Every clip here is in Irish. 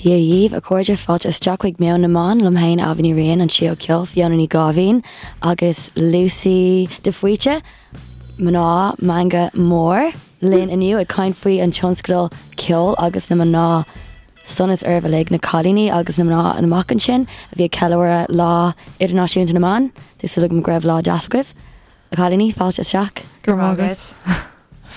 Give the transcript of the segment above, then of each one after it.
Dia dhaoibh, a chairde, fáilte isteach chuig Meon na mBan, liom féin Ailbhe Ní Riain, an Síol Ceoil, Fiona Ní Gáibhín agus Lucy de Faoite, mná meangadh mór, linn inniu ag caint faoi an tionscadal Ceol agus na Mná sonas oraibh uilig, na cailíní agus na mná amach ansin a bhí ag ceiliúradh Lá Idirnáisiúnta na mBan. Tá súil agam go raibh lá deas agaibh. A chailíní, fáilte isteach. Go raibh maith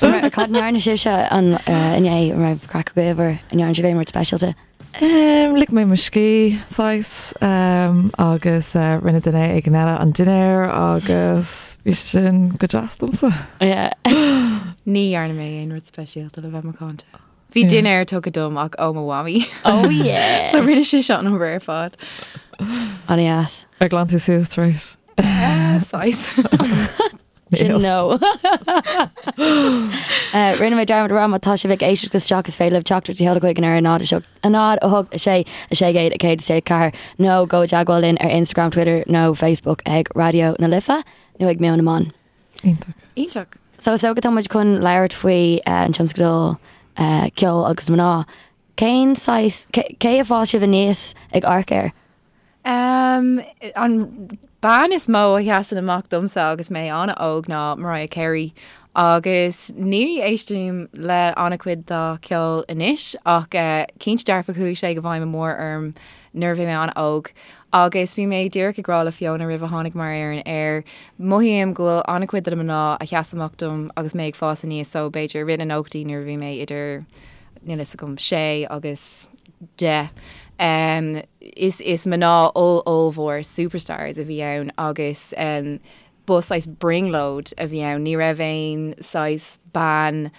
agat. Cad a ndearna sibhse an inné an raibh craic agaibh or an ndearna sibh aon rud speisialta? Lig mé mo scíth, saghas, agus rinne duine éigin eile an dinnéar agus bhí sé sin go deas domsa. Yeah. Ní dhearna mé aon rud speisialta le bheith macánta. Bhí dinnéar tugtha dom ach ó mo mhamaí. Oh yeah! So rinne sise an obair ar fad. An-deas. Ar ghlan tú suas tar éis? Saghas. Sin no. Rinne mé dearmad a rá má tá sibh ag éisteacht isteach is féidir libh teachtaireacht a sheoladh chuig an ar 0 7 0 8 6 6 1 6 4 nó gabh i dteagmháil linn ar Instagram, Twitter nó Facebook ag Raidió na Life nó ag Meon na mBan. Iontach. Iontach. So is dócha tá muid chun labhairt faoi an tionscadal Ceol agus Mná. Cén saghas, cé a fhás sibh aníos ag amharc air? Um, an bean is mó a sheasann amach domsa agus mé an-óg ná Mariah Carey agus ní éistim le an-chuid dá ceol anois ach uh, cinnte dearfa chuaigh sé i bhfeidhm mór orm nuair a bhí mé an-óg. Agus bhí mé díreach ag rá le Fiona roimh a tháinig mar ar an aer, mothaím go bhfuil an-chuid de na mná a sheas amach dom agus mé ag fás aníos so b'fhéidir i rith na nóchaidí nuair a bhí mé idir, níl fhios agam, sé agus 10. Um, is, is mná oll ollmhór superstars a bhí ann agus um, ba saghas brionglóid a bhí ann. Ní raibh aon saghas bean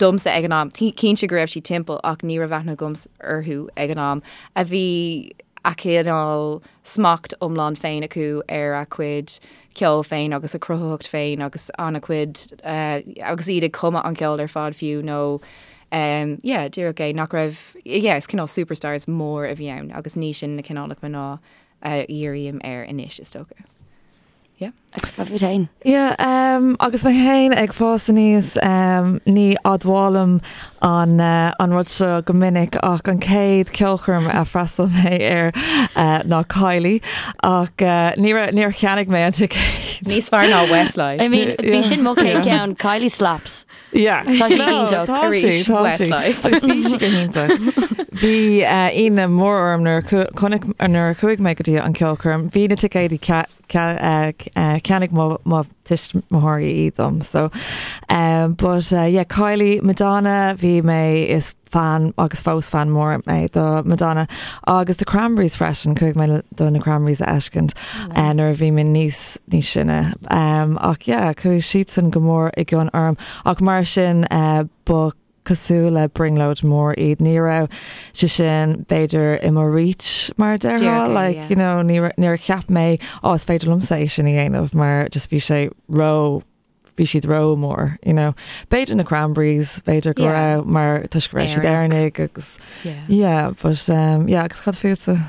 domsa ag an am, cinnte go raibh siad timpeall ach ní raibh aithne agam orthu ag an am, a bhí a cineál smacht iomlán féin acu ar a cuid ceoil féin agus a cruthaitheacht féin agus an-chuid agus iad ag cumadh an ceol ar fad fiú nó yeah díreach é nach raibh yeah is cineál superstars mór a bhí ann agus ní sin na cineálacha mná a dhírím air anois is dócha. Yeah. Agus cad fút féin? Yeah, um, agus mé féin ag fás aníos, um, ní admhálaim an, uh, an rud seo go minic ach an chéad ceolchoirm a freastal mé air uh, ná Kylie ach uh, ní raibh- níor cheannaigh mé an ticéad. Níos fearr ná Westlife. I mean, bhí sin mo chéad ceann, Kylie slaps. Yeah. Tá sí iontach. Tá sí, Arís, tá sí. Westlife. Agus bhí sí go hiontach. Bhí uh, ionadh mór orm nuair a chu- chonaic- nuair a chuaigh mé go dtí an ceolchoirm. Bhí na ticéidí ce- ce- uh, uh, cheannaigh mo, mo tuismitheoirí iad dom. So, um, but uh, yeah, Kylie, Madonna, bhí mé is fan agus fós fan mór mé do Madonna agus The Cranberries freisin, chuaigh mé do na Cranberries a fheiscint uh, nuair a bhí mé níos níos sine. Um, ach yeah, chuaigh siadsan go mór i gcion orm ach mar sin uh, ba cosúil le brionglóid mór iad. Ní raibh sé sin b'fhéidir i mo reach mar a déarfá, Díreach é, like, yeah. you know, ní ra- níor cheap mé ó is féidir liomsa é sin a dhéanamh mar just bhí sé ró bhí siad ró mór, you know. B'fhéidir na Cranberries, b'fhéidir go Yeah. raibh mar toisc go raibh siad Éireannach. Éireannaigh agus Yeah. yeah, but um, yeah, agus cad fútsa?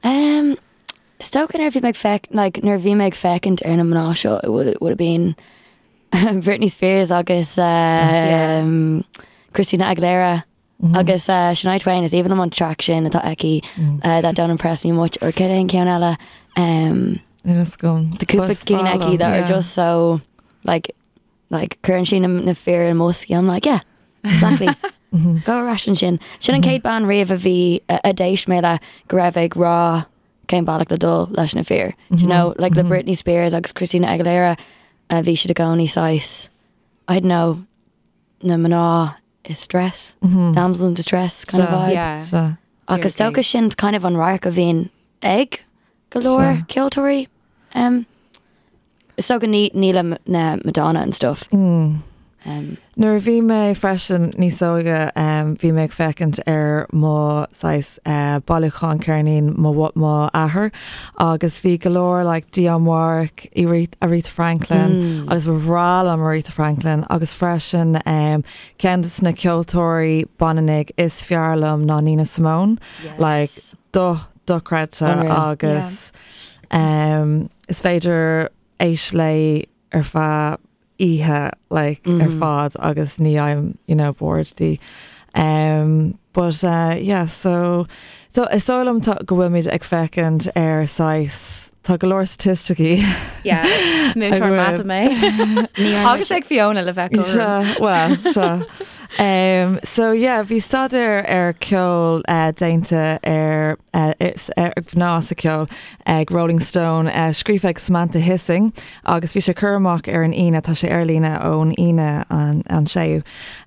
Um, is dócha nuair a bhí mé ag feic, like, nuair a bhí mé ag féachaint ar na mná seo, it would, would have been Britney Spears agus um, Christina Aguilera agus uh, Shania Twain is aoibhinn liom an track sin atá aici uh, that don't impress me much or cad é an ceann eile um, Níl fhios agam. the cúpla Bus cinn aici breá that are liom, just so like like cuireann sí na, na fir i mboscaí I'm like yeah exactly go ar ais ansin sin an chéad bean riamh a bhí a, a d'éist mé le go raibh ag rá cén bealach le dul leis na fir Do you know like le Britney Spears agus Christina Aguilera a bhí siad i gcónaí saghas I don't know na mná i stress damsel in distress kind of Sea. vibe Yeah. Sea. Agus dócha sin kind of an radharc a bhíonn ag go leor Sea. ceoltóirí. Um, is dócha ní ní le na Madonna and stuff. Um, Nuair a bhí mé freisin níos óige um, bhí mé ag féachaint ar mo saghas uh, bailiúchán ceirnín mo mo athair agus bhí go leor like Dionne Warwick, Aretha Aretha Franklin agus ba bhreá liom Aretha Franklin agus freisin um, ceann de na ceoltóirí baineannaigh is fearr liom ná Nina Simone. Like yes. do dochreidte Unreal. agus um, is féidir éisteacht léi ar feadh. oíche like ar fad agus ní fhaighim you know bored di. Um, but uh, yeah, so so is dóigh liom tá go bhfuilimid ag féachaint ar saghas tá go leor staitisticí. Yeah, is múinteoir mata mé. Agus ag Fiona le bheith cothrom. Well, seo. Um, so yeah, bhí staidéar ar ceol uh, déanta ar uh, ar mhná sa ceol ag Rolling Stone, uh, scríofa ag Samantha Hissing agus bhí sé curtha amach ar an Aoine, tá sé ar líne ón Aoine an, an séú.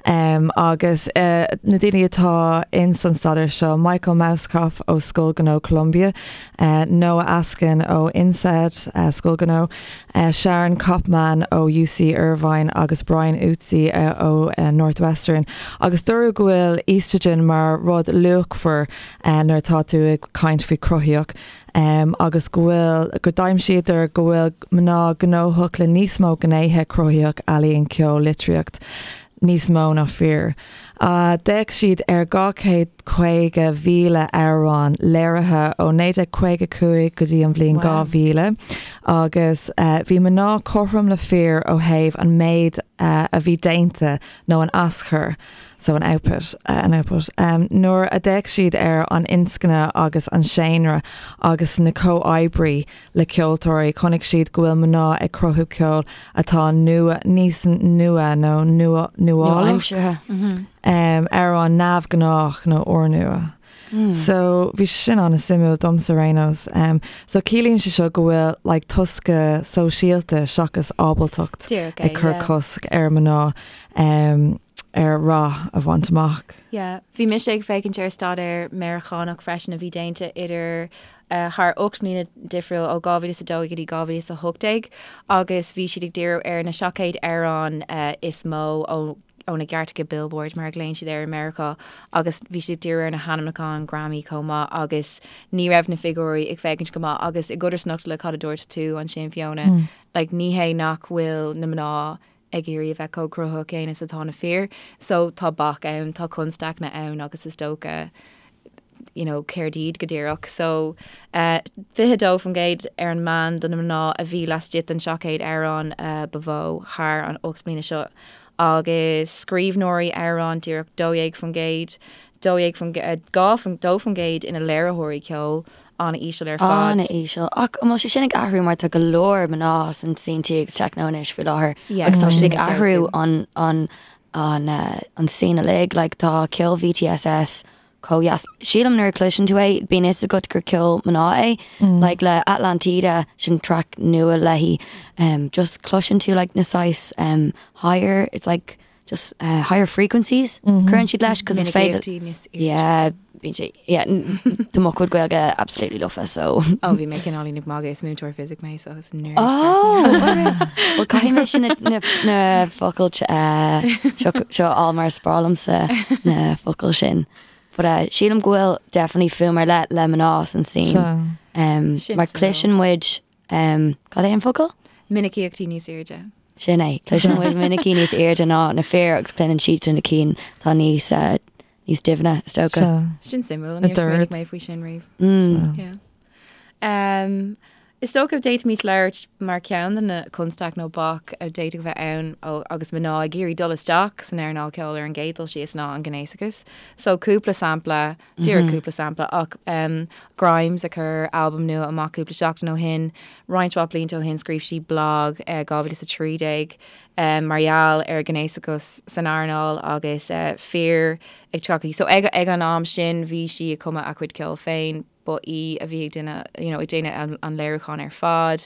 Um, agus uh, na daoine atá in san staidéar seo, Michael Mauskopf ó Scoil Gnó Columbia, uh, Noah Askin ó INSEAD uh, Scoil Gnó, uh, Sharon Kopman ó UC Irvine agus Brian Utsey uh, ó uh, Northwestern. Agus dúradh go bhfuil estrogen mar rud luachmhar uh, nuair atá tú ag caint faoi chruthaíocht um, agus go bhfuil go d'aimsíodar go bhfuil mná gnóthach le níos mó gnéithe cruthaitheach ealaíon ceol litríocht níos mó ná fir. Uh, D'fhéach siad ar 250,000 amhrán léirithe ó 1955 go dtí an bhliain 2000 agus uh, bhí mná cothrom le fir ó thaobh an méid uh, a bhí déanta nó an aschur so an output, an output. Um, nuair a d'fhéach siad ar an inscne agus an seánra agus na comhoibrí le ceoltóirí, chonaic siad go bhfuil mná ag cruthú ceoil atá nua, níos nua nó nua, nuálach, Nua-aimseartha. um, amhrán neamhghnách nó úrnua. So bhí sé sin an-suimiúil domsa ar aon nós. Um, so ciallaíonn sé seo go bhfuil like, tosca sóisialta seachas ábaltacht Díreach é, ag cur yeah. cosc ar mná um, ar rath a bhaint amach. Yeah. Bhí mise ag féachaint ar staidéar Meiriceánach freisin a bhí déanta idir uh, thar 8 mbliana difriúil ó 2002 go dtí 2018 agus bhí siad ag díriú ar na 700 amhrán uh, is mó ó ó na gcairteacha Billboard mar a ghlaonn siad air i Meiriceá agus bhí siad ag díriú ar na hainmniúcháin Grammy chomh maith agus ní raibh na figiúirí ag féachaint go maith agus i gcodarsnacht le cad a dúirt tú ansin Fiona, like ní hé nach bhfuil na mná ag iarraidh a bheith chomh cruthaitheach céanna is atá na fir so tá bac ann, tá constaiceanna ann agus is dócha you know, céard iad go díreach. So, 22% ar an meán do na mná a bhí laistigh den 700 amhrán ba mhó thar an 8 mbliana seo agus scríbhneoirí amhrán díreach 12%, 12%, 2% ina léiritheoirí ceoil, an-íseal ar fad. An-íseal. Ach an bhfuil sé sin ag athrú mar tá go leor mná san scene agus techno anois faoi láthair Yeah, agus tá tá siad sin ag ag athrú feabhsú. an, an, an, an scene uilig, like tá ceol VTSS chomh dheas. Sílim nuair a chloiseann tú é, bíonn fhios agat gur ceol mná é. Like le Atlantida, sin track nua léi, um, just cloiseann tú like na saghas um, higher, it's like just uh, higher frequencies cuireann siad leis, cos is féidir Minicíochtaí níos airde. Yeah, bíonn sé, yeah, tá mo chuid Gaeilge absolutely lofa, so. Ó, bhí mé cineáilín ag magadh, is múinteoir fisic mé, so is nerd. Oh, well caithfidh mé sin na, na focail uh, seo, seo á mar is breá liomsa na focail sin. But uh, sílim go bhfuil definitely fuaim ar leith le mná san scene. Sea. Um, Sin mar suimiúil. cloiseann muid um, cad é an focal? Minicíochtaí níos airde. Sin é, cloiseann muid minicí níos airde ná na fir agus cluineann siad na cinn tá níos uh, níos doimhne is dócha. Sea. Sin suimiúil, Na níor smaoinigh dord. mé faoi sin riamh. Mm. Yeah. Um, is dócha d'fhéadfaimis labhairt mar ceann de na constaic nó bac a d'fhéadfadh a bheith ann ó, agus mná ag iarraidh dul isteach san earnáil ceoil ar an gcéad dul síos ná an gnéasachas. So cúpla sampla, díreach cúpla sampla ach um, Grimes a chuir albam nua amach cúpla seachtain ó shin, roinnt mhaith blianta ó shin scríobh sí blag uh, 2013 um, mar gheall ar ghnéasachas san earnáil agus uh, fir ag teacht. So ag, ag an am sin bhí sí ag cumadh a cuid ceoil féin, ba í a bhí ag duine, you know, ag déanamh an, an léiriúchán ar fad,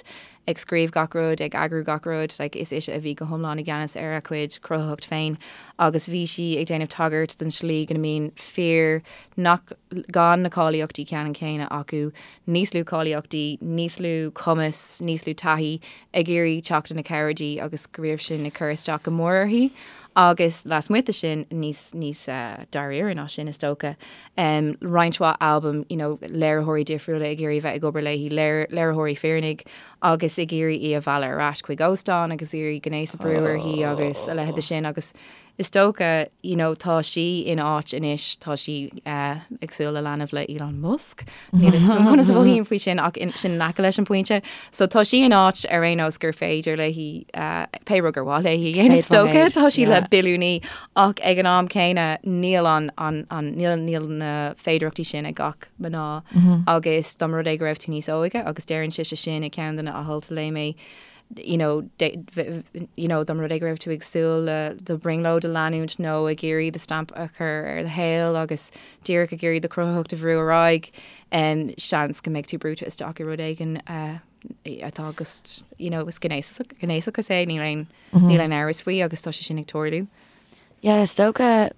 ag scríobh gach rud, ag eagrú gach rud, like, is ise a bhí go hiomlán i gceannas ar a cuid cruthaitheacht féin agus bhí sí ag déanamh tagairt don slí go mbíonn fir nach gan na cáilíochtaí ceannann céanna acu, níos lú cáilíochtaí, níos lú cumas, níos lú taithí ag iarraidh teacht ina cabhair di agus go raibh sin ag cur isteach go mór uirthi. Agus lasmuigh de sin níos níos uh, dáiríre ná sin is dócha. Um, roinnt mhaith albam, you know, léiritheoirí difriúla ag iarraidh bheith ag obair léi, léir, léiritheoirí fireannaigh agus ag iarraidh í a mhealladh ar ais chuig óstán agus iarraidh gnéas a brú uirthi agus a leithéid de sin agus is dócha, you know, tá sí in áit anois, tá sí ag súil le leanbh le Elon Musk, níl a fhios agam conas a mhothaím faoi sin ach sin in aice leis an bpointe. So tá sí in áit ar aon nós gur féidir léi pé rud gur mhaith léi a dhéanamh is dócha, tá sí le billiúnaí ach ag an am céanna níl an, an, an, níl, níl na féidearthachtaí sin ag gach mná agus dá mba rud é go raibh tú níos óige agus deireann sise sin i ceann de na hailt a léigh mé, you know, you know, dá mba rud é go raibh tú ag súil le do bhrionglóid a leanúint nó ag iarraidh do stamp a chur ar do shaol agus díreach ag iarraidh do chruthaitheacht a bhrú ar aghaidh, um, seans go mbeidh tú brúite isteach i rud éigin uh, atá just, you know, is gnéasach, gnéasachas é, níl aon, níl aon amhras faoi agus tá sé sin ag tarlú. Yeah, is dócha,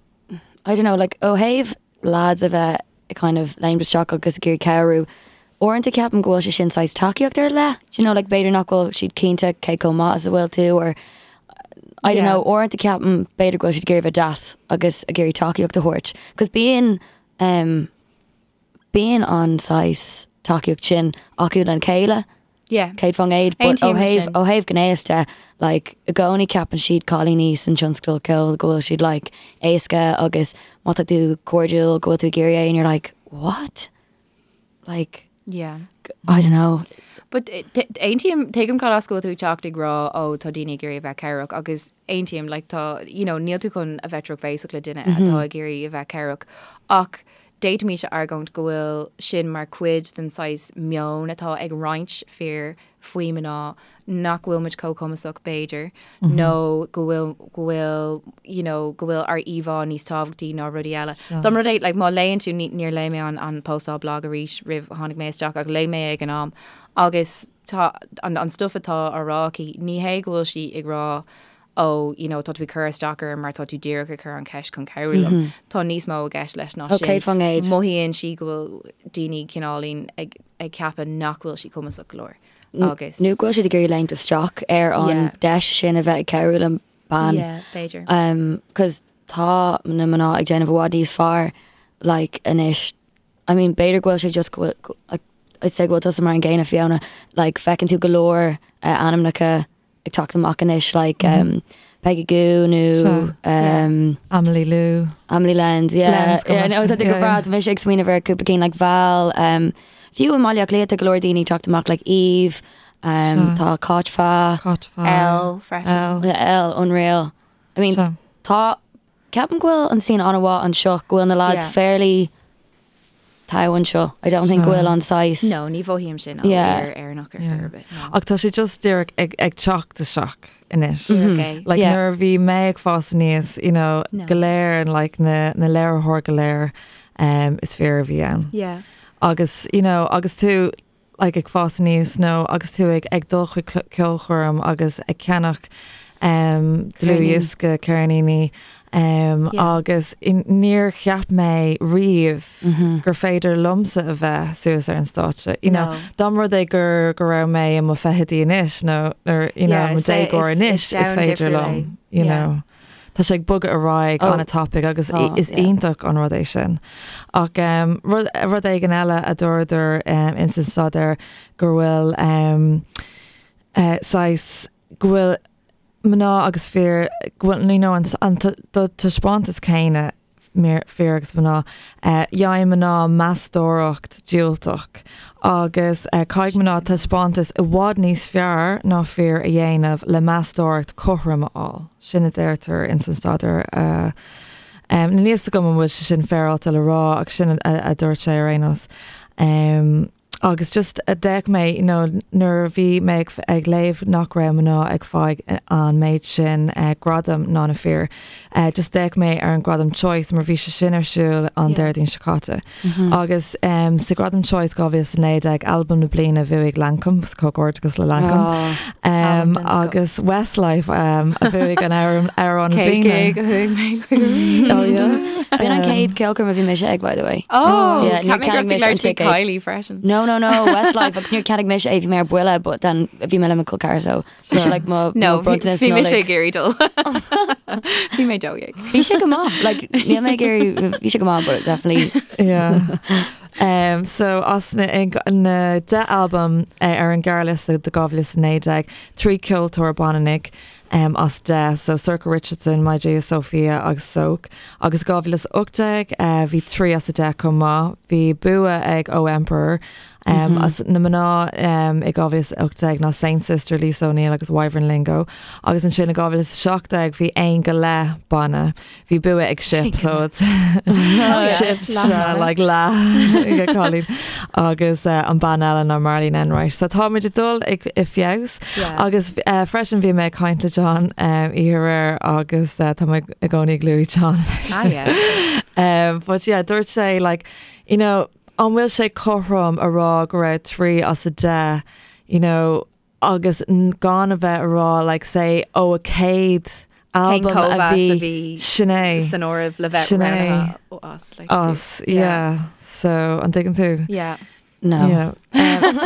I don't know, like, ó thaobh lads a bheith ag kind of léimt isteach agus ag iarraidh cabhrú. Uaireanta ceapaim go bhfuil sé sin saghas tacaíocht ar leith, do you know, like b'fhéidir nach bhfuil siad cinnte cé chomh maith is a bhfuil tú or I don't know, uaireanta ceapaim b'fhéidir go bhfuil siad ag iarraidh bheith deas agus ag iarraidh tacaíocht a thabhairt. Cos bíonn um, bíonn an saghas tacaíocht sin acu lena chéile. Yeah. 100%, but ó thaobh ó thaobh gnéas de, like, i gcónaí ceapann siad cailíní san tionscal ceoil go bhfuil siad like éasca agus má tá tú cairdiúil go bhfuil tú ag iarraidh é and you're like, what? Like, Yeah. I don't know. But eh, aontaím tuigim cad as go bhfuil tú ag teacht ag rá ó tá daoine ag iarraidh a bheith cabhrach agus aontaím like tá you know níl tú chun a bheith drochbhéasach le duine atá ag iarraidh a bheith cabhrach ach D'fhéadfaimis a argóint go bhfuil sin mar chuid den saghas meon atá ag roinnt fir faoi mná, nach bhfuil muid chomh cumasach b'fhéidir, nó go bhfuil, go bhfuil, you know, go bhfuil ár íomhá níos tábhachtaí ná rudaí eile. Dá mba rud é, like, má léann tú, ní, níor léigh mé an, an postáil blag arís roimh tháinig mé isteach ach léigh mé ag an am agus tá an, an stuff atá á rá aici, ní hé go bhfuil sí ag rá ó you know tá tú ag cur isteach orm mar tá tú díreach ag cur an cheist chun cabhrú liom. Tá níos mó i gceist leis ná sin. 100%. Mothaíonn sí go bhfuil daoine cineáilín ag ag ceapadh nach bhfuil sí cumasach go leor agus. Nó go bhfuil siad ag iarraidh léimt isteach ar an Yeah. deis sin a bheith ag cabhrú le bean. Yeah, b'fhéidir. Um, 'cause tá na mná ag déanamh i bhfad níos fearr like anois. I mean b'fhéidir go bhfuil sé just go bhfuil go- like, I'd say go bhfuil tusa mar an gcéanna Fiona, like feiceann tú go leor uh, ainmneacha ag teacht amach anois like um, Peggy Gou nó um, Amelie Lou. Amelie Lens, yeah. Lens, go Yeah, no, maith. tá go Yeah, breá, yeah. tá mise ag smaoineamh ar cúpla cinn like Val, um, fiú i mBaile Átha Cliath tá go leor daoine ag teacht amach like Eve, um, Sea. tá Cáit Fa, Cáit Fa. L freisin. L. yeah, L, unreal. I mean, Sea. tá, ceapaim go bhfuil an scene an-mhaith anseo, go bhfuil na lads Yeah. fairly togha anseo. I don't think go bhfuil an saghas. No, ní mhothaím sin ó Yeah. fhear Éireannach ar chor ar bith. no. Ach tá sé just díreach ag, ag teacht isteach anois. Okay. Like Yeah. nuair a bhí mé ag fás aníos, you know, No. go léir and like na, na léiritheoirí go léir um, is fir a bhí ann. Yeah. Agus, you know, agus tú like ag fás aníos nó agus tú ag ag dul chuig ceolchoirm agus ag ceannach um, dlúthdhiosca ceirníní um, Yeah. agus in, níor cheap mé riamh Mm-hmm. gur féidir liomsa a bheith suas ar an stáitse. You know, No. dá mba rud é gur go raibh mé i mo fichidí anois nó nó you know, Yeah, mo is é- déagóir is- anois is is domhan féidir difriúil liom, é. you Yeah. know. Tá sé ag bogadh ar aghaidh Oh. an-tapaidh agus Tá, is yeah. iontach an rud é sin. Ach um, rud, rud éigin eile a dúradar um, in san staidéar go bhfuil um, uh, saghas go bhfuil mná agus fir go bhfuil you know, an, an do taispeántas céanna fir agus mná uh, dhéanann mná meastóireacht diúltach agus uh, caithfidh mná taispeántas i bhfad níos fearr ná fir a dhéanamh le meastóireacht cothrom a fháil. Sin a deirtear in san staidéar. Uh, um, Níl a fhios agam an bhfuil sé sin féaráilte le rá ach sin a, a dúirt sé ar aon nós. Um, agus just a d'fhéach mé you know, nuair a bhí mé ag, ag léamh nach raibh mná ag fáil an méid sin uh, gradam ná na fir. Uh, just d'fhéach mé ar an gradam Choice mar bhí sé sin ar siúl an Yeah. Déardaoin seo caite. Mm-hmm. Agus um, sa gradam Choice 2019 album na bliana bhuaigh Lankum comhghairdeas le Lankum. Oh, Um, Album den scoth. agus Westlife um, a bhuaigh an amhrán amhrán na Cé bliana. go chuaigh mé chuig Oh, yeah. B'in an chéad ceolchoirm a bhí mise ag, by the way. Oh, Yeah, níor ceap mé go cheannaigh raibh tú mise an labhairt faoi ticéad. Kylie freisin. No, no, no, Westlife, agus níor cheannaigh mise é bhí mé ar buile, but then bhí mé le mo col ceathar, so bhí sé like mo No, mo bronntanas bhí mise Nollaig. ag iarraidh dul. Bhí mé 12. Bhí sé go maith, like níl mé ag iarraidh, bhí sé go maith, but definitely Yeah. Um, so as na, na 10 album uh, ar an gearrliosta do 2019, 3 ceoltóir baineannaigh. as 10, so Sorcha Richardson, My Sophia agus Soak. Agus 2018 bhí 3 as 10 chomh maith. Bhí bua ag Oh Emperor. As na mná i 2018 ná Saint Sister, Lisa O'Neill agus Wyvern Lingo. Agus ansin i 2017 bhí aon go leith ban. Bhí bua ag Ship so it's Ship like leath ag cailín agus an bean eile ná Marlene Enright. So táimid ag dul ag i feabhas agus freisin bhí mé ag caint le John oíche aréir agus tá mé i gcónaí ag lua John. Ah, yeah. But yeah, dúirt sé like, you know, an bhfuil sé cothrom a rá go raibh 3 as 10, you know, agus gan a bheith a rá like say ó a 100 Cén album a cóimheas a bhí bhí sin é san áireamh le bheith sin é roghnaithe as like as yeah so an dtuigeann tú? Yeah. No. Yeah.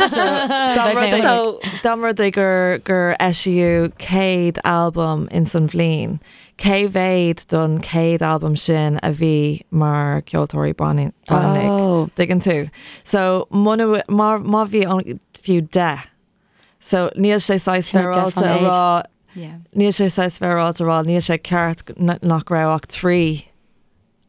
So dá mba rud é So dá mba rud é gur gur eisíodh 100 album in san bhliain, cé mhéad don 100 album sin a bhí mar ceoltóirí baineannaigh? Oh. Tuigeann tú? So muna má má bhí an fiú 10 So níl sé saghas Sin é féaráilte a 10%. rá Yeah. níl sé saghas féaráilte a rá níl sé ceart nach raibh ach 3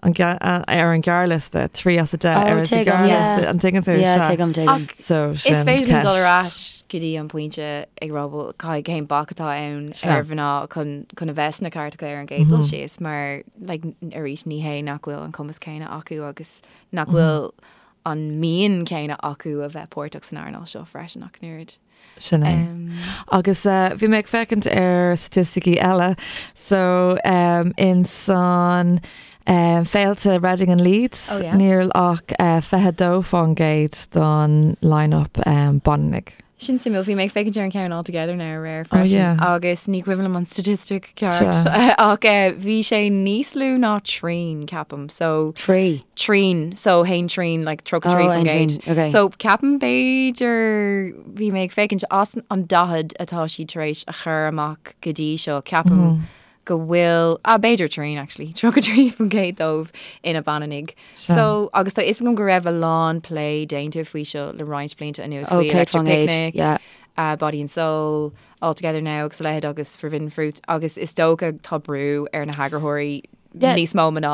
an ar an gearrliosta, 3 as 10 Oh, ar an tuigim, gearrliosta yeah. an tuigeann tú Yeah, sea. tuigim, tuigim. Ach So is sin féidir linn dul ar ceist. ais go dtí an pointe ag rá bhuel caithfidh cén bac atá ann Sea. ar mhná chun chun a bheith sna cairteacha ar an gcéad dul síos mar like, arís ní hé nach bhfuil an cumas céanna acu agus nach bhfuil an mian céanna acu a bheith páirteach san earnáil seo freisin ach an oiread. Sin é. Agus bhí mé ag féachaint ar staitisticí eile so in san féilte Reading and Leeds Oh, yeah. níl ach 22% don line-up baineannaigh. Sin suimiúil, bhí mé ag féachaint ar an ceann All Together Now aréir Oh, freisin yeah. agus ní cuimhin liom an statistic ceart Sea. ach bhí sé níos lú ná trian ceapaim so Trí. trian so haon trian like 33 Oh, faoin aon gcéad. trian, okay. So ceapaim b'fhéidir bhí mé ag féachaint as an 40 atá siad tar éis a chur amach go dtí seo ceapaim go bhfuil ah, b'fhéidir trian actually 33% dóibh ina baineannaigh. So agus tá fhios agam go raibh a lán plé déanta faoi seo le roinnt blianta anuas Oh, faoi céad Electric faoin gcéad, Picnic, yeah. Body and Soul, All Together Now agus a leithéid agus Forbidden Fruit agus is dócha tá brú ar na heagarthóirí Yeah. níos mó mná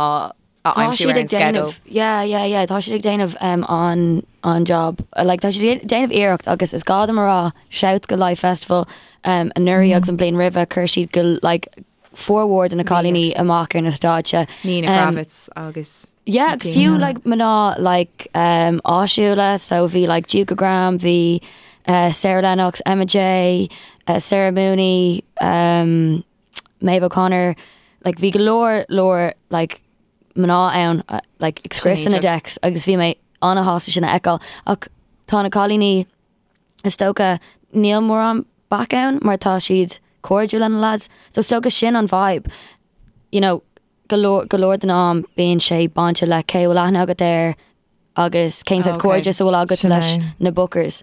a Tá aimsiú siad ar an ag déanamh sceideal. yeah, yeah, yeah, tá siad ag déanamh an an job like tá siad ag déanamh iarracht agus is gá dom a rá shout go Live Festival anuraidh agus an bliain roimhe chuir siad go like formhór de na cailíní amach ar na stáitse. Nina Kravitz agus Yeah, Gina. fiú like mná like áisiúla so bhí like Juka Graham, bhí Sarah Lennox, Emma J, Sarah Mooney, Maeve O'Connor, like bhí go leor leor like mná ann like ag scriosadh na Sin decks agus bhí mé an-shásta sin a fheiceáil ach tá na cailíní is dócha níl mórán bac ann mar tá siad cairdiúil lena lads so is dócha sin an vibe you know go leor go leor den am bíonn sé bainte le cé bhfuil aithne agat air agus cén saghas Okay. cairdeas a bhfuil agat Sin leis é. na bookers.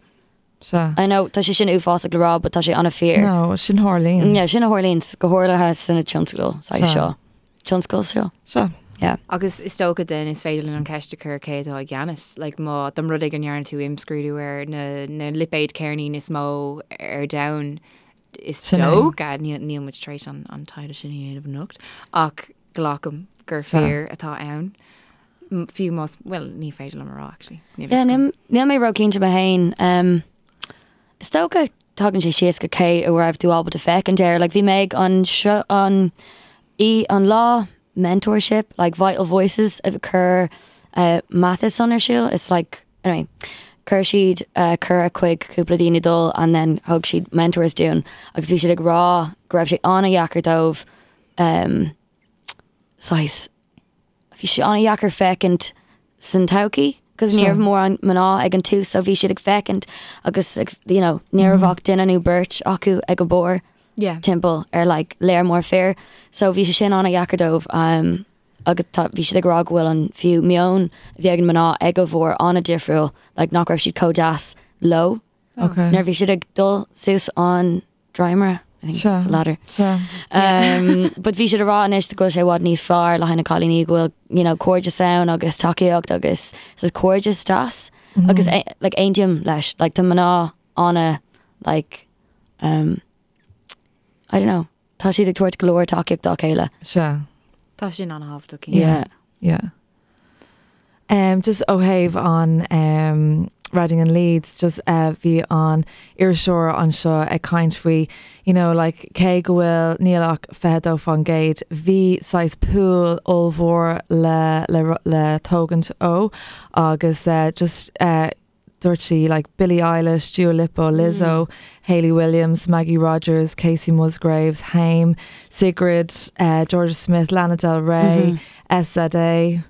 Sea. I know tá sé sin uafásach le rá but tá sé an-fhíor. No, sin tharlaíonn. Yeah, sin a tharlaíonn go háirithe sna tionscadail saghas Sea. seo. Tionscal seo. Sea. Yeah. Agus is dócha then is féidir linn an ceist a chur cé atá i gceannas, like má dá mba rud é go ndearna tú imscrúdú ar na na lipéid ceirnín is mó ar domhan, is Sin é. dócha, níl níl muid tar éis an an taighde sin a dhéanamh anocht, ach glacaim gur Sea. fir atá ann. Fiú más, bhuel, ní féidir liom a rá actually. Níl Yeah, fhios agam. níl níl mé róchinnte mé féin. Is dócha tagann sé síos go cé a raibh tú ábalta féachaint air. Like bhí mé ag an seo an í an lá mentorship, like Vital Voices a chuir Matheson ar siúl. It's like, anyway, chuir siad cuireadh chuig cúpla daoine dul and then thug siad mentors dúinn agus bhí siad ag rá go raibh sé an-dheacair dóibh saghas bhí sé an-dheacair féachaint san todhchaí cos ní raibh mórán mná ag an tús so bhí siad ag féachaint agus ag you know ní raibh ach duine nó beirt acu ag an bharr Yeah. timpeall ar like léar mór fir so bhí sé sin an-dheacair dóibh agus tá bhí siad ag rá go bhfuil an fiú meon a bhí ag an mná ag an bharr an-difriúil like nach raibh siad chomh deas leo Okay. nuair a bhí siad ag dul suas an dréimire, I think Sea. it's a ladder. Sea. But bhí siad ag rá anois go bhfuil sé i bhfad níos fearr le haghaidh na cailíní go bhfuil you know, cairdeas ann agus tacaíocht agus is cairdeas deas agus like aontaím leis like tá mná ana like um, I don't know. Tá siad ag tabhairt go leor tacaíocht dá chéile. Sea. Tá sin an-thábhachtach. Yeah. Yeah. Um, just ó thaobh an um, Reading and Leeds, just uh, bhí an iriseoir anseo ag caint faoi, you know, like, cé go bhfuil níl ach 22%, bhí saghas pool ollmhór le, le, le tógaint ó agus uh, just uh, Dúirt sí, like Billie Eilish, Dua Lipa, Lizzo, Hayley Williams, Maggie Rogers, Kacey Musgraves, Haim, Sigrid, Jorja Smith, Lana Del Rey, SZA,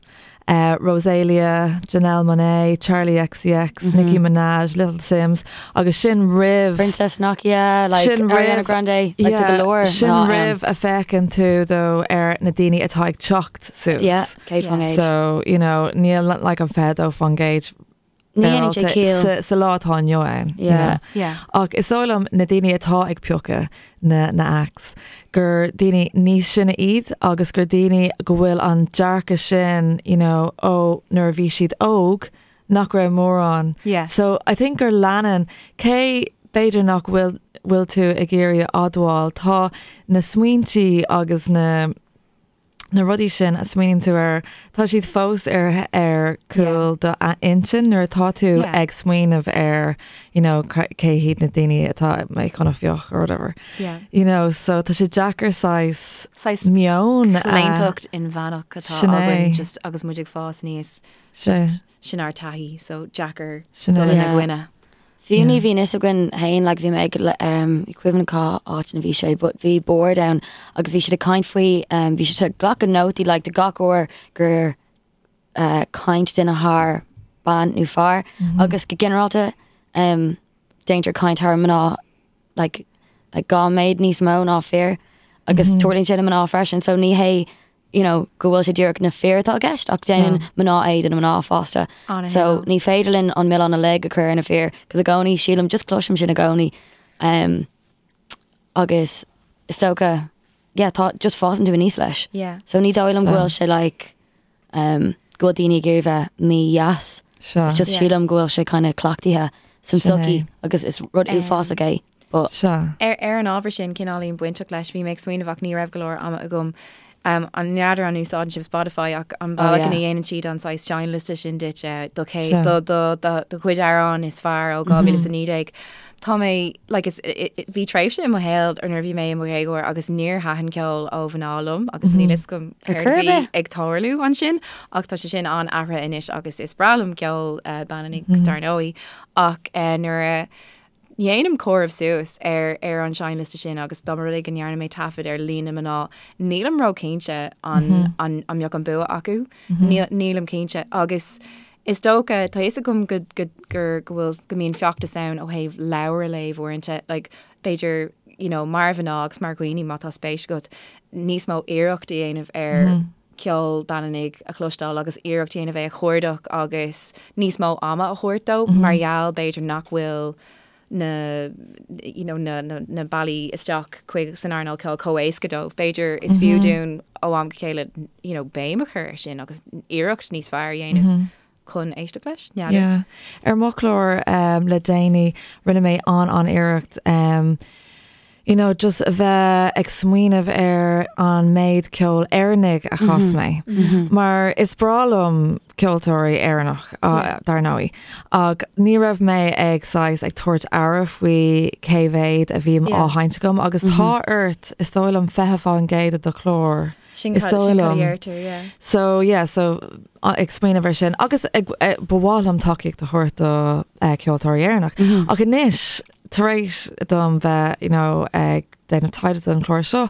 Rosalia, Janelle Monáe, Charli XCX, Nicki Minaj, Little Simz agus sin roimh. Princess Nokia, like Ariana Grande, like tá go leor Sin roimh a féachann tú though ar na daoine atá ag teacht suas. Yeah, 100%. So, you know, níl like an 22% Ní dhéanann sé ciall. Sa lá atá inniu ann. Yeah. Yeah. Ach is dóigh liom na daoine atá ag piocadh na na acts gur daoine níos sine iad agus gur daoine go bhfuil an dearcadh sin, you know, ó nuair a bhí siad óg nach raibh mórán. Yeah. So I think gur leanann, cé b'fhéidir nach bhfuil bhfuil tú ag iarraidh a admháil, tá na smaointí agus na na rudaí sin a smaoiníonn tú air, tá siad fós ar ar cúl do intinn nuair atá tú ag smaoineamh ar you know cé hiad na daoine atá mé chun a phiocadh or whatever. Yeah. You know, so tá sé deacair saghas Saghas meon a claontacht inmheánach atá Sin é. againn just agus muid ag fás aníos. Sin é. Just sin ár taithí, so deacair Sin dul é. ina Yeah. gcoinne. Fiú ní bhíonn fhios againn féin, like bhí mé ag ní cuimhin cá áit ina bhí sé, but bhí bord ann agus bhí siad ag caint faoi, bhí siad ag glacadh nótaí like de gach uair gur caint duine thar bean nó fear agus go ginearálta déantar caint thar mná like like 2 méid níos mó ná fir agus tarlaíonn sé do mná freisin so ní hé you know, go bhfuil sé díreach na fir atá i gceist ach déanann mná é do na mná fosta. So ní féidir linn an milleán uilig a chur ar na fir, cos i gcónaí sílim just cloisim sin i gcónaí um, agus is dócha yeah, tá just fásann tú aníos leis. Yeah. So ní dóigh liom go bhfuil sé like um, go bhfuil daoine ag iarraidh bheith mídheas. Sure. It's just Yeah. sílim go bhfuil sé kind of cleachtaithe san Sin é. sochaí agus is rud uafásach é. But Sure. Ar ar an ábhar sin, cineáilín bainteach leis, bhí mé ag smaoineamh ach ní raibh go leor ama agam. Um, an n'fheadar an úsáideann sibh Spotify ach an Oh, bealach yeah. ina dhéanann siad an saghas seinnliosta sin duit eh, do cé Sure. do do do do chuid amhrán is fearr ó 2019. Tá mé like is i- i- bhí tréimhse i mo shaol ar nuair a bhí mé i mo dhéagóir agus níor thaitin ceol ó mhná liom agus níl fhios agam Ar céard chor a ar bhí bith. ag tarlú ansin ach tá sé sin an-athraithe anois agus is breá liom ceol eh, baineannaigh dar ndóigh ach eh, nuair a dhéanaim comhaireamh suas ar ar an seinnliosta sin agus dá mba rud é go ndearna mé taifead ar líon na mná, nílim ró-chinnte an an an mbeadh an bua acu. Níl nílim cinnte agus is dócha, tá fhios agam go go gur go bhfuil go mbíonn feachtas ann ó thaobh leabhar a léamh uaireanta, like b'fhéidir you know mar mhná agus mar dhaoine má tá spéis agat níos mó iarracht a dhéanamh ar ceol baineannaigh a chloisteáil agus iarracht a dhéanamh é a chuardach agus níos mó ama a thabhairt dó mar gheall b'fhéidir nach bhfuil na you know na na na bealaí isteach chuig san earnáil ceoil chomh éasca dóibh. B'fhéidir is fiú dúinn ó am go chéile you know béim a chur air sin agus iarracht níos fearr a dhéanamh chun éisteacht leis. N'fheadar. Yeah. Ar mo chlár um, le déanaí rinne mé an an-iarracht um, you know, just a bheith ag smaoineamh ar an méid ceol Éireannaigh a chas mé. Mar is breá liom ceoltóirí Éireannach, dar ndóigh, ach ní raibh mé ag saghas ag tabhairt aire faoi cé mhéad a bhí á sheinnt agam agus tá ort, is dóigh liom, 20% de do chlár. Sin Is cad dóigh sin cad a liom. dheirtear, yeah. So yeah, so ag smaoineamh ar sin agus ag, ba mhaith liom tacaíocht a thabhairt do ceoltóirí Éireannach. Ach anois, tar éis dom bheith, you know, ag déanamh taighde don chlár seo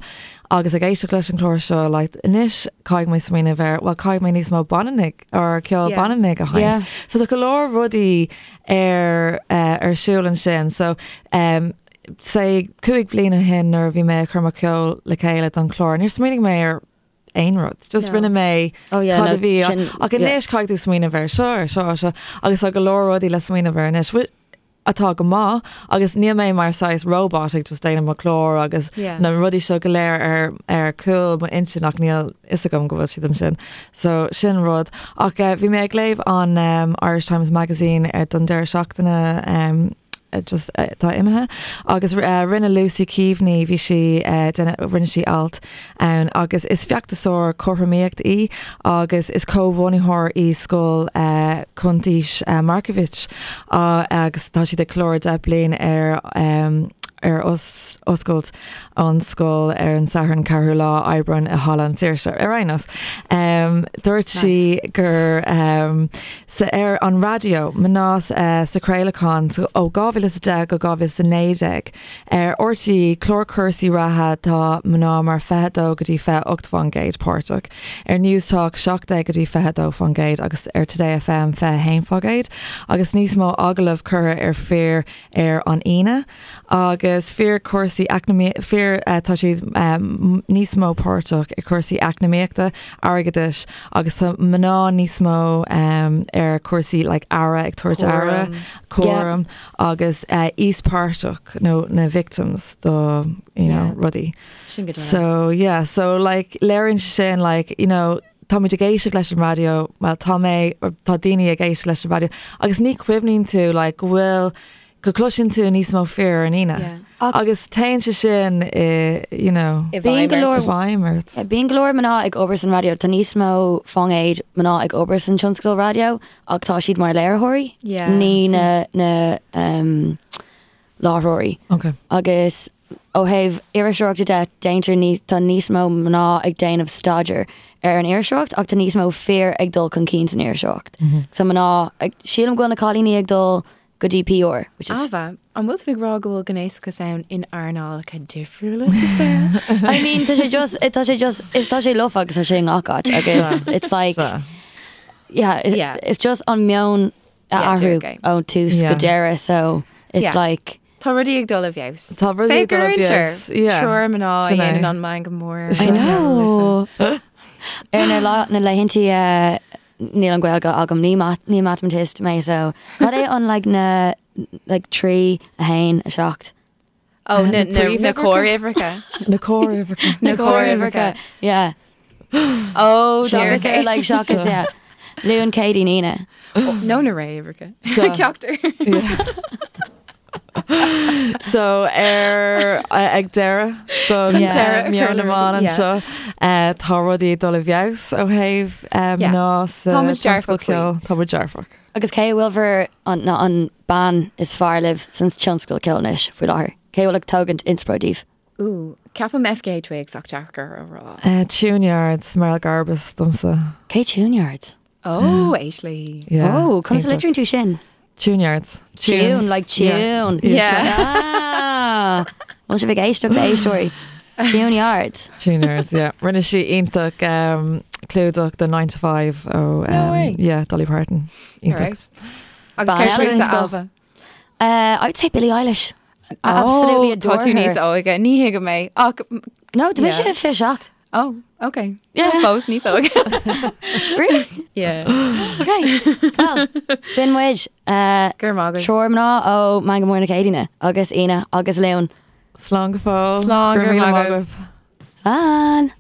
agus ag éisteacht leis an chlár seo, like, anois caithfidh mé smaoineamh ar, well, caithfidh mé níos mó baineannaigh or ceol Yeah. baineannaigh a sheinnt. Yeah. So tá go leor rudaí ar, ar siúl ansin. So, um, say 5 bliana ó shin nuair a bhí mé ag cur mo cheol le chéile don chlár, níor smaoinigh mé ar aon rud. Just No. rinne mé Oh yeah, cad no, a bhí sin, ach yeah. anois caithfidh tú smaoineamh ar seo, ar seo, ar seo, agus tá go leor rudaí le smaoineamh ar anois, atá go maith agus níl mé mar saghas robot ag just déanamh mo chlár agus Yeah. na rudaí seo go léir ar ar cúl mo intinn ach níl fhios agam go bhfuil siad ansin. So sin rud. Ach eh, bhí mé ag léamh an um, Irish Times Magazine ar don deireadh seachtaine um, just atá imithe agus rinne Lucy Keaveney bhí sí rinne sí alt ann agus is feachtasóir cothromaíocht í agus is comhbhunaitheoir í Scoil Cuntaois Markievicz agus tá siad ag ceiliúradh 10 bliain ar ar oscailt an scoil ar an Satharn 4ú lá Aibreán i Halla an Saoirse. Ar aon nós, dúirt sí gur sa ar an raidió, mná sa chraolachán ó 2010 go 2019. Ar RTÉ, clár cúrsaí reatha, tá mná mar 22 go dtí 28 fán gcéad páirteach, ar Newstalk 17 go dtí 22 fán gcéad agus ar Today FM 21 fá gcéad agus níos mó agallamh curtha ar fir ar an Aoine. Agus fir cúrsaí eacnamaíochta, fir, tá siad níos mó páirteach i cúrsaí eacnamaíochta, airgeadais agus tá mná níos mó ar cúrsaí like aire, ag tabhairt aire, cúram agus íospartach nó na victims do you know rudaí. Sin go deimhin. So yeah, so like léiríonn sé sin like you know táimid ag éisteacht leis an raidió, well tá mé, tá daoine ag éisteacht leis an raidió agus ní chuimhníonn tú like go bhfuil go gcloiseann tú níos mó fir ar an Aoine. Yeah. Agus téann sé sin i, you know, I Bíonn bhfeidhm go ort. leor i bhfeidhm ort. Yeah, Bíonn go leor mná ag obair san raidió. Tá níos mó fán gcéad mná ag obair san tionscal raidió ach tá siad mar léiritheoirí, Yeah, ní sin- na, na um, láithreoirí. Okay. Agus ó thaobh iriseoireachta de, déantar níos, tá níos mó mná ag déanamh staidéar ar an iriseoireacht ach tá níos mó fir ag dul chun cinn san iriseoireacht. So mná, ag, sílim go bhfuil na cailíní ag dul go dtí PR, which is Ailbhe, an bhfuil tú ag rá go bhfuil gnéasachas ann in earnálacha difriúla sa saol? I mean, tá sé just, tá sé just, is tá sé lofa agus tá sé i ngach áit agus it's like, Sea. yeah, it, Yeah. it's just an meon a Yeah, athrú dúirt ó tús go Yeah. deireadh, so it's Yeah. like, Tá rudaí ag dul i bhfeabhas. Tá rudaí ag dul i bhfeabhas, yeah. Triúr mná a Sin é. dhéanann an meangadh mór. I know. Ar na lá na laethanta eh, níl an Ghaeilge agam ní mat ní mathematist mé so cad é an like na like 3 1 7 Ó, na, na, na Príomhuimhreacha? córuimhreacha. Na córuimhreacha. Na córuimhreacha. yeah Ó, Seachas dear. ar like seachas yeah Luan Céadaoin Aoine Nó na réamhuimhreacha. Seo. Ceachtar. So ar ag deireadh don Yeah. deireadh Meon na mBan Yeah. anseo eh, tá rudaí ag dul i bhfeabhas ó thaobh eh, Yeah. mná sa Tá muid dearfach tionscal ceoil. Tá muid dearfach. Agus cé a bhfuil bhur an na an bean is fearr libh san tionscal ceoil anois faoi láthair? Cé a bhfuil ag tógaint inspioráid daoibh? Ooh, ceapaim FKA Twigs ach deacair a rá. Eh, Tune-Yards, Merrill Garbus domsa. Cé Tune-Yards? Ó, éist léi. Yeah. Oh, conas a Iontach. litríonn tú sin? Tune-Yards. Tune, like tune. Yeah. Ah. Bhfuil sibh ag éisteacht a éisteoirí? Tune-Yards. Tune-Yards, yeah. Rinne sí iontach um, clúdach do 9 to 5 ó No way. yeah, Dolly Parton. Iontach. Alright. Agus Ban cé eile den fútsa, scoth. Ailbhe? Uh, I would say Billie Eilish. I absolutely Ó, adore Tá tú her. níos óige, ní thuigim é. Ach, No, tá mise Yeah. 27. oh, okay. Yeah. Fós níos óige. Really? Yeah. Okay. Well, b'in muid. Uh, Gur maith agat. Triúr mná ó Meangadh Mór na Céadaoine agus Aoine agus Luan. Slán go fóill. Slán, Go raibh go raibh míle maith maith agaibh. agaibh. Slán.